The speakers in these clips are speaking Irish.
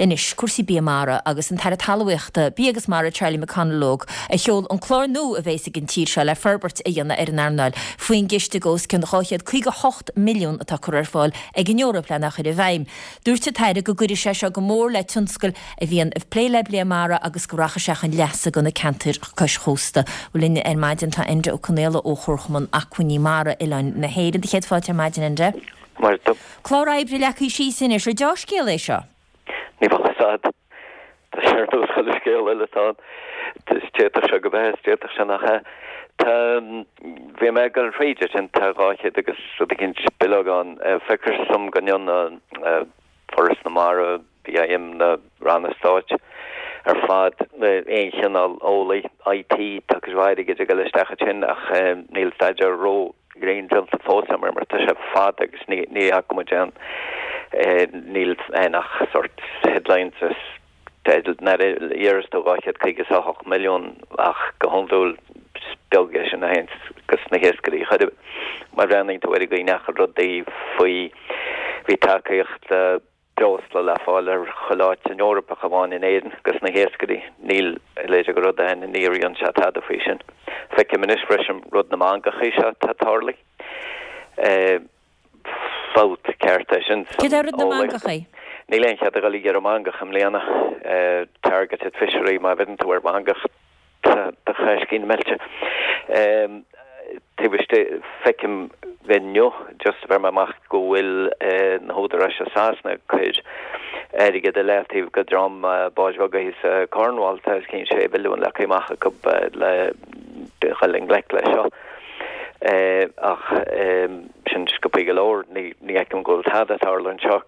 Anois, cúrsaí bia mara agus an tAire Talmhaíochta, Bia agus Mara Charlie McConalogue a sheol an clár nua a bhéas ag an tír seo le forbairt a dhéanamh ar an earnáil faoin gciste de os cionn 258 milliún atá curtha ar fáil ag an Eoraip lena chur i bhfeidhm. Dúirt an tAire go gcuirfidh sé seo go mór le tionscail a bhíonn ag plé le bia mara agus go rachaidh sé chun leasa do na ceantair cois chósta. Bhuel linn ar maidin tá Enda Ó Conaola ó Chomharchumann Acmhainní Mara Oileáin na hÉireann. Do chéad fáilte ar maidin Enda. Mar do. Clár oibre leagtha síos anois, ar deá-scéal é seo? Ní bheadh fhios a'd. Tá sé ar nós chuile scéal eile atá ann. D'fhéadfadh sé go bheith is d'fhéadfadh sé nach ea. Tá, bhí mé ag dul thríd ansin, tá 200 agus rud eicínt bileog ann. Feictear dom go ndearna Foras na Mara, BIM, na ranna stáit ar fad, aon chineál eolaí, IT, tá cuid mhaith airgid ag dul isteach ansin ach níl staidéar ró ghrinn déanta fós agam air mar tá sé fada agus ní fhaca muid aon, níl aon ach sort headlines is teidil nuair a iarras tú 258 milliún ach go hiondúil is beag é sin a théann go sna hiascairí chor ar bith. Má bhreathnaíonn tú ar an gcaoi a ndeachaigh rudaí faoi bhí tacaíocht breosla le fáil ar chuile áit san Eoraip ach amháin in Éirinn dos na hiascairí. Níl a leithéid de rud ann, ní ritheann sé tada faoi sin. Feicim anois freisin rud na mangachaí seo atá tarlaithe. Fabht ceart é sin san Céard é rud na mangachaí? Níl aon chead a dhul ag iarraidh mangach i mbliana. Targeted fishery, má bheireann tú ar mhangach Tá do chaiscín meilte. Taobh istigh, feicim inniu, just a bheir mé amach go bhfuil na húdaráis i Sasana ag cur airgead i leataobh go dream báid bheaga thíos i Cornwall, tá os cionn 6 mhilliún leagtha amach acu le dhul i ngleic leis seo. Ach sin sciobthaí go leor, ní fheicim go bhfuil tada ag tarlú anseo.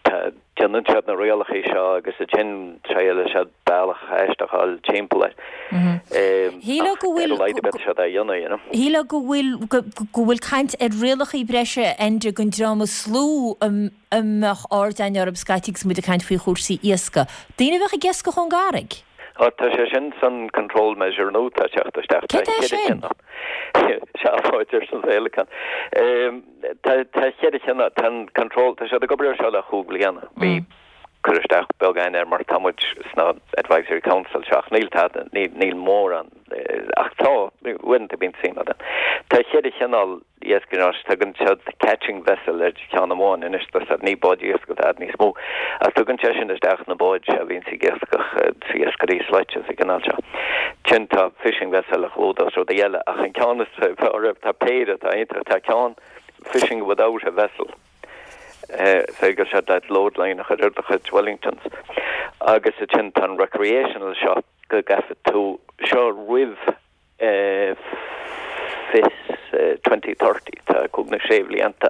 Tá. Déanann siad na rialacha seo agus ansin triaileann siad bealach aisteach a fháil timpeall air. Shílfeá go bhfuil. Ar a laghad beidh siad á dhéanamh, you know. Shílfeá go bhfuil, go bhfuil caint ar rialacha breise Enda don dream is lú a mbeadh aird againn orthu scaití agus muid ag caint faoi chúrsaí iascaigh. Daoine a bheadh ag iascach ón gcarraig. Ó, tá sé sin san control measure nua atá ag teacht isteach. Céard é sin? Seafóid arsa an Féileacán. Tá cheithre chineál, tá an control, tá siad ag obair ar seo le chúig bliana. Bhí cur isteach beag againn air mar tá muid sna advisory council seo ach níl tada, níl mórán, ach tá, uaireanta bíonn suim againn. Tá cheithre chineál iascaigh anois, tugann siad catching vessel ar cheann amháin anois, tá siad, ní báid iascaigh atá níos mó, ach tugann sé sin isteach na báid a bhíonns ag iascach, iascairí slaite sa gcineál seo. Ansin tá fishing vessel a chlúdós rudaí eile, ach an ceann is fearr, tá péire atá iontach, tá ceann fishing without a vessel, féidir siad leat load line a chur ar do chuid Wellingtons, agus ansin tá an recreational seo go gcaithfidh tú seo roimh 2030, tá cúig nó sé bhlianta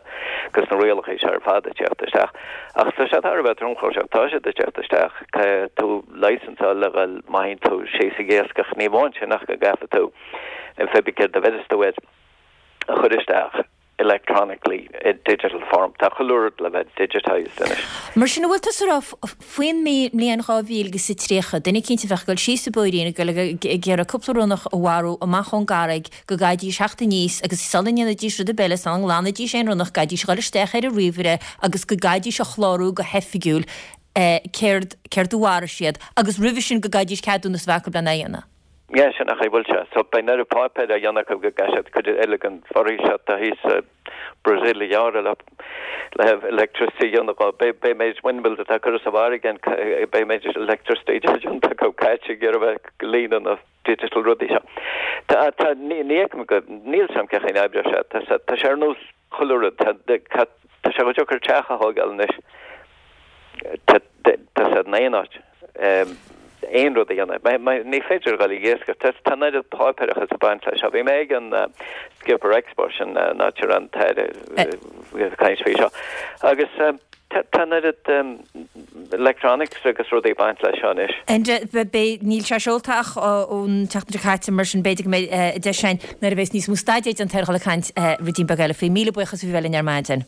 agus na rialacha seo ar fad ag teacht isteach. Ach tá sé thar a bheith tromchúiseach, tá siad ag teacht isteach, caithfidh tú licence a fháil le dhul má théann tú síos ag iascach, ní amháin sin ach go gcaithfidh tú an pé céard a bheireas tú air a chur isteach. electronically i digital form. Tá chuile rud le bheith digitised anois. Mar sin, an bhfuil tusa ag rá faoin mbliain 2030, duine eicínt a bheadh ag dul síos sa bPóirín ag dul ag iarraidh cúpla ronnach a mharú amach ón gcarraig, go gcaithfidís theacht aníos agus sula ndéanfaidís rud ar bith eile, sula nglanfaidís aon ronnach, gcaithfidís a dhul isteach ar an ríomhaire agus go gcaithfidís a chlárú go hoifigiúil céard céard a mharaigh siad agus roimhe sin go gcaithfidís ceadúnas a bheith acu lena dhéanamh. Yeah, sin an chaoi a bhfuil sé. So beidh an oiread páipéir á dhéanamh acu go gcaithfidh siad cuid eile den bhforaois atá thíos i Brazil a ghearradh le le electricity a dhéanamh dhó. Beidh beidh méid windmills atá curtha sa bhfarraige an beidh méid electricity déanta acu caite ag iarraidh bheith ag líonadh na digital rudaí seo. Tá tá ní ní fheicim go níl 's a'm cén chaoi a n-oibreoidh sé. Tá sé tá sé ar nós chuile rud. Tá tá sé chomh deacair teach a thógáil anois. Tá sé in aon áit. Aon rud a dhéanamh. Ní féidir a dhul ag iascach. Tá an oiread páipéarachas ag baint leis seo. Bhí mé ag an Skipper Expo, sin an áit a raibh an tAire ag caint faoi seo. Agus tá an oiread electronics agus rudaí ag baint leis seo anois. Enda, beidh, níl sé seolta ach ón tseachtain seo caite, mar sin b'fhéidir go mbeidh deis againn nuair a bheas níos mó staidéir déanta air a dhul ag caint ruidín beag eile faoi. Míle buíochas as a bheith linn ar maidin.